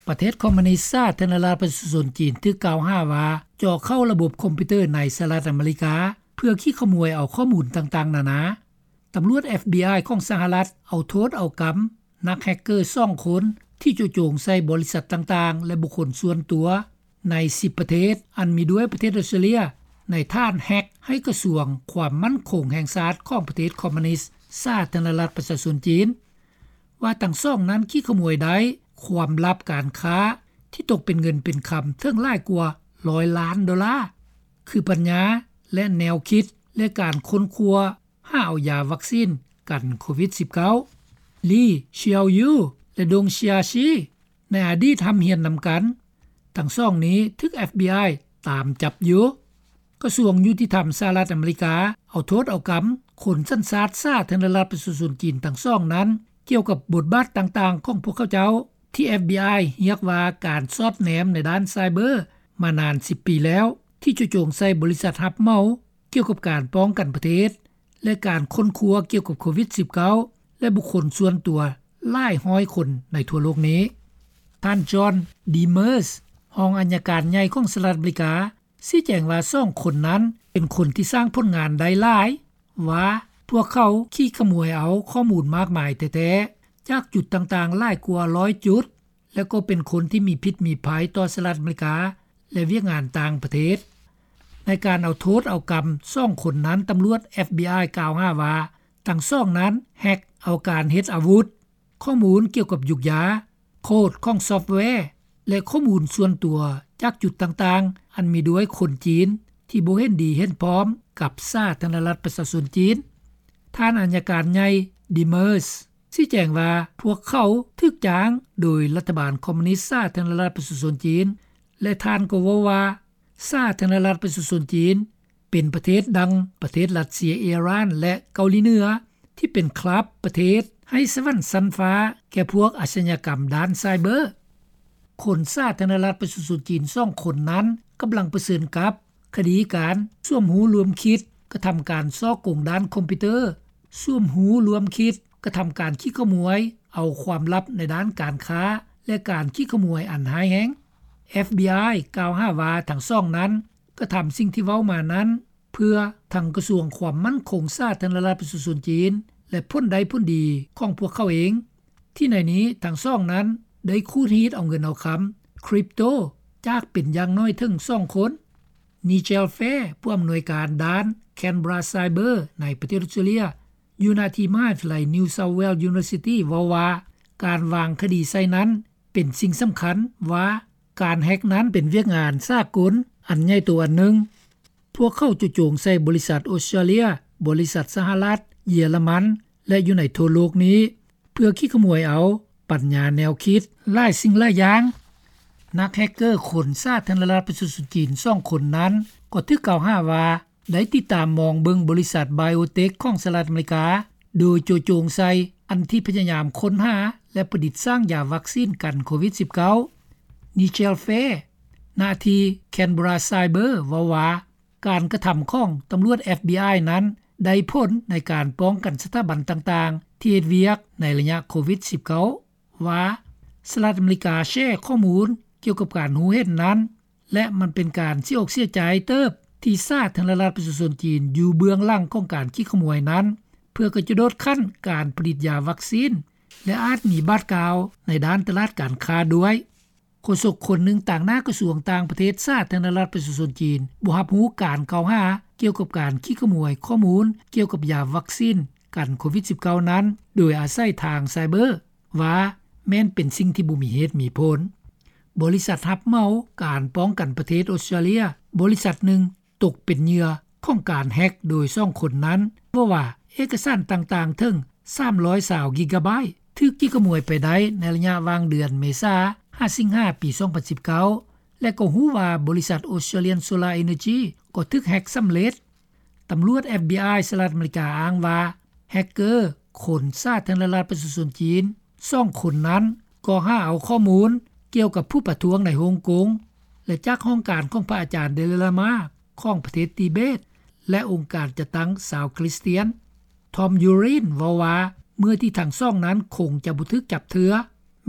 ປະເທດຄອມມິວນິສ ສາທາລະນະລັດ ປະຊາຊົນຈີນ ຖືກກ່າວຫາວ່າ ເຈາະເຂົ້າລະບົບຄອມພິວເຕີ ໃນສະຫະລັດອາເມລິກາ ເພື່ອຂີ້ຂະໂມຍເອົາຂໍ້ມູນຕ່າງໆນານາ. ຕຳຫຼວດ FBI ຂອງສະຫະລັດ ເອົາໂທດເອົາກຳ ນັກແຮັກເກີສອງຄົນ ທີ່ເຈາະຈົງໃສ່ບໍລິສັດຕ່າງໆ ແລະບຸກຄົນສ່ວນຕົວ ໃນສິບປະເທດ ອັນມີດ້ວຍປະເທດອອສເຕຣເລຍ ໃນຖານແຮັກໃຫ້ກະຊວງຄວາມໝັ້ນຄົງແຫ່ງຊາດ ຂອງປະເທດຄອມມິວນິສ ສາທາລະນະລັດ ປະຊາຊົນຈີນ ວ່າທັງສອງນັ້ນ ຂີ້ຂະໂມຍໄດ້ຄວາມລັບການຄ້າ ທີ່ຕົກເປັນເງິນເປັນຄຳເຖິງຫຼາຍກວ່າຮ້ອຍລ້ານໂດລາ ຄືປັນຍາ ແລະແນວຄິດ ແລະການຄົ້ນຄວ້າຫາເອົາຢາວັກຊີນກັນໂຄວິດສິບເກົ້າ. ລີ ຊິເອົາຢູ ແລະ ດົງ ຊິອາຊີ ໃນອະດີດຮ່ຳຮຽນນຳກັນ. ທັງສອງນີ້ຖືກ FBI ຕາມຈັບຢູ່. ກະຊວງຍຸຕິທຳສະຫະລັດອາເມລິກາ ເອົາໂທດເອົາກຳຄົນສັນຊາດສາທາລະນະລັດປະຊາຊົນຈີນທັງສອງນັ້ນ ກ່ຽວກັບບົດບາດຕ່າງໆຂອງພວກເຂົາເຈົ້າ ທີ່ FBI ຮຽກວ່າການສອດແນມໃນດ້ານໄຊເບີມານານສິບປີແລ້ວ ທີ່ເຈາະຈົງໃສ່ບໍລິສັດຮັບເໝົາ ກ່ຽວກັບການປ້ອງກັນປະເທດ ແລະການຄົ້ນຄວ້າກ່ຽວກັບໂຄວິດສິບເກົ້າ ແລະບຸກຄົນສ່ວນຕົວຫຼາຍຮ້ອຍຄົນໃນທົ່ວໂລກນີ້. ທ່ານ ຈອນ ດີເມີສ ຮອງອັຍການໃຫຍ່ຂອງສະຫະລັດອາເມລິກາ ຊີ້ແຈງວ່າສອງຄົນນັ້ນເປັນຄົນທີ່ສ້າງຜົນງານໄດ້ຫຼາຍ ວ່າພວກເຂົາຂີ້ຂະໂມຍເອົາຂໍ້ມູນມາກມາຍແທ້ໆ ຈາກຈຸດຕ່າງໆຫຼາຍກວ່າຮ້ອຍຈຸດ ແລະກໍເປັນຄົນທີ່ມີພິດມີໄພຕໍ່ສະຫະລັດອາເມລິກາ ແລະວຽກງານຕ່າງປະເທດ. ໃນການເອົາໂທດເອົາກຳສອງຄົນນັ້ນ ຕຳຫຼວດ FBI ກ່າວຫາວ່າ ທັງສອງນັ້ນແຮັກເອົາການເຮັດອາວຸດ, ຂໍ້ມູນກ່ຽວກັບຢູກຢາ, ໂຄດຂອງຊອບແວ ແລະຂໍ້ມູນສ່ວນຕົວຈາກຈຸດຕ່າງໆ ອັນມີດ້ວຍຄົນຈີນທີ່ບໍ່ເຫັນດີເຫັນພ້ອມກັບສາທາລະນະລັດປະຊາຊົນຈີນ. ທ່ານອັຍການໃຫຍ່ ດີເມີສ ຊີ້ແຈງວ່າ ພວກເຂົາຖືກຈ້າງໂດຍລັດຖະບານຄອມມິວນິສສາທາລະນະລັດປະຊາຊົນຈີນ ແລະທ່ານກໍເວົ້າວ່າ ສາທາລະນະລັດປະຊາຊົນຈີນ ເປັນປະເທດດັ່ງປະເທດຣັດເຊຍ, ອີຣານ ແລະເກົາຫຼີເໜືອ ທີ່ເປັນຄລັບປະເທດໃຫ້ສະຫວັນຊັ້ນຟ້າແກ່ພວກອາຊະຍາກຳດ້ານໄຊເບີ. ຄົນສາທາລະນະລັດປະຊາຊົນຈີນສອງຄົນນັ້ນ ກຳລັງປະເຊີນກັບຄະດີການສວມຮູ້ຮ່ວມຄິດກະທຳການສໍ້ໂກງດ້ານຄອມພິວເຕີ, ສວມຮູ້ຮ່ວມຄິດກະທຳການຂີ້ຂະໂມຍເອົາຄວາມລັບໃນດ້ານການຄ້າ ແລະການຂີ້ຂະໂມຍອັນຮ້າຍແຮງ. FBI ກ່າວຫາວ່າທັງສອງນັ້ນ ກະທຳສິ່ງທີ່ເວົ້າມານັ້ນ ເພື່ອທັງກະຊວງຄວາມໝັ້ນຄົງສາທາລະນະລັດປະຊາຊົນຈີນ ແລະຜົນໄດ້ຜົນດີຂອງພວກເຂົາເອງ ທີ່ໃນນີ້ທັງສອງນັ້ນໄດ້ຂູດຮີດເອົາເງິນເອົາຄຳຄຣິບໂຕ ຈາກເປັນຢ່າງໜ້ອຍເຖິງສອງຄົນ. ນີເຈລ ແຟ ຜູ້ອຳນວຍການດ້ານ Canberra Cyber ໃນປະເທດອອສເຕຣເລຍ ຢູ່ນະທີ່ມະຫາວິທະຍາໄລ New South Wales University ເວົ້າວ່າ ການວາງຄະດີໃສ່ນັ້ນ ເປັນສິ່ງສຳຄັນວ່າ ການແຮັກນັ້ນເປັນວຽກງານສາກົນອັນໃຫຍ່ໂຕອັນໜຶ່ງ. ພວກເຂົາເຈາະຈົງໃສ່ບໍລິສັດອອສເຕຣເລຍ, ບໍລິສັດສະຫະລັດ, ເຢຍລະມັນ ແລະຢູ່ໃນທົ່ວໂລກນີ້ ເພື່ອຂີ້ຂະໂມຍເອົາປັນຍາແນວຄິດຫຼາຍສິ່ງຫຼາຍຢ່າງ. ນັກແຮັກເກີຄົນສາທາລະນະລັດປະຊາຊົນຈີນສອງຄົນນັ້ນ ກໍຖືກກ່າວຫາວ່າ ໄດ້ຕິດຕາມມອງເບິ່ງບໍລິສັດ Biotech ຂອງສະຫະລັດອາເມລິກາ ໂດຍໂຈະຈົງໃສ່ອັນທີ່ພະຍາຍາມຄົ້ນຫາ ແລະປະດິດສ້າງຢາວັກຊີນກັນໂຄວິດສິບເກົ້າ. ນີເຈລ ແຟ ນະທີ່ Canberra Cyber ເວົ້າວ່າ ການກະທຳຂອງຕຳຫຼວດ FBI ນັ້ນ ໄດ້ຜົນໃນການປ້ອງກັນສະຖາບັນຕ່າງໆ ທີ່ເຮັດວຽກໃນໄລຍະໂຄວິດສິບເກົ້າ ວ່າ ສະຫະລັດອາເມລິກາແຊຂໍ້ມູນກ່ຽວກັບການຮູ້ເຫັນນັ້ນ ແລະມັນເປັນການເສຍອົກເສຍໃຈເຕີບ ທີ່ສາທາລະນະລັດປະຊາຊົນຈີນຢູ່ເບື້ອງຫຼັງຂອງການຂີ້ຂະໂມຍນັ້ນ ເພື່ອກະຈະໂດດຂັ້ນການຜະລິດຢາວັກຊີນ ແລະອາດມີບາດກ້າວໃນດ້ານຕະຫຼາດການຄ້າດ້ວຍ. ໂຄສົກຄົນໜຶ່ງຕາງໜ້າກະຊວງຕ່າງປະເທດສາທາລະນະລັດປະຊາຊົນຈີນ ບໍ່ຮັບຮູ້ການກ່າວຫາກ່ຽວກັບການຂີ້ຂະໂມຍຂໍ້ມູນກ່ຽວກັບຢາວັກຊີນກັນໂຄວິດສິບເກົ້ານັ້ນ ໂດຍອາໄສທາງໄຊເບີ ວ່າແມ່ນເປັນສິ່ງທີ່ບໍ່ມີເຫດມີຜົນ. ບໍລິສັດຮັບເໝົາການປ້ອງກັນປະເທດອອສເຕຣເລຍ ບໍລິສັດໜຶ່ງ ຕົກເປັນເຫຍື່ອຂອງການແຮັກໂດຍສອງຄົນນັ້ນ ເວົ້າວ່າເອກະສານຕ່າງໆເຖິງສາມຮ້ອຍຊາວກິກາໄບ ຖືກຂີ້ຂະໂມຍໄປໄດ້ໃນໄລຍະຫວ່າງເດືອນເມສາ ຫາສິງຫາ ປີສອງພັນສິບເກົ້າ ແລະກໍຮູ້ວ່າບໍລິສັດ Australian Solar Energy ກໍຖືກແຮັກສຳເລັດ. ຕຳຫຼວດ FBI ສະຫະລັດອາເມລິກາອ້າງວ່າ ແຮັກເກີຄົນສາທາລະນະລັດປະຊາຊົນຈີນສອງຄົນນັ້ນ ກໍຫາເອົາຂໍ້ມູນກ່ຽວກັບຜູ້ປະທ້ວງໃນຮົງກົງ ແລະຈາກຫ້ອງການຂອງພະອາຈານ Dalai Lama ຂອງປະເທດຕີເບດ ແລະອົງການຈັດຕັ້ງຊາວຄຣິສຕຽນ. ທອມ ຢູຣິນ ເວົ້າວ່າ ເມື່ອທີ່ທັງສອງນັ້ນຄົງຈະບໍ່ຖືກຈັບເທື່ອ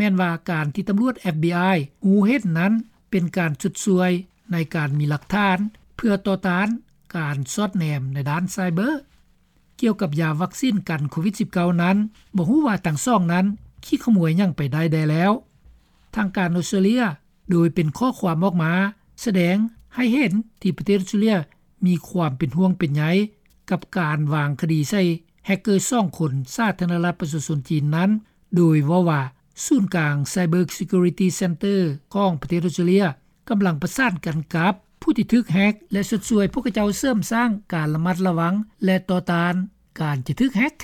ແມ່ນວ່າການທີ່ຕຳຫຼວດ FBI ຮູ້ເຫັນນັ້ນ ເປັນການຊົດຊ່ວຍໃນການມີຫຼັກຖານ ເພື່ອຕໍ່ຕ້ານການສອດແນມໃນດ້ານໄຊເບີ. ກ່ຽວກັບຢາວັກຊີນກັນໂຄວິດ-19 ນັ້ນ ບໍ່ຮູ້ວ່າທັງສອງນັ້ນ ຂີ້ຂະໝວຍຫຍັງໄປໄດ້ແດ່ແລ້ວ. ທາງການອອສເຕຣເລັຽ ໂດຍເປັນຂໍ້ຄວາມອອກມາ ສະແດງໃຫ້ເຫັນທີ່ປະເທດອອສເຕຣເລັຽ ມີຄວາມເປັນຫ່ວງເປັນໃຍ ກັບການວາງຄະດີໃສ່ແຮັກເກີສອງຄົນ ສາທາລະນະລັດປະຊາຊົນຈີນນັ້ນ ໂດຍເວົ້າວ່າ ສູນກາງ Cyber Security Center ຂອງປະເທດອອສເຕຣເລັຽ ກຳລັງປະສານກັນກັບຜູ້ທີ່ຖືກແຮັກ ແລະ ຊົດຊ່ວຍພວກເຂົາເຈົ້າເສີມສ້າງການລະມັດລະວັງ ແລະ ຕໍ່ຕ້ານການຈະຖືກແຮັກ.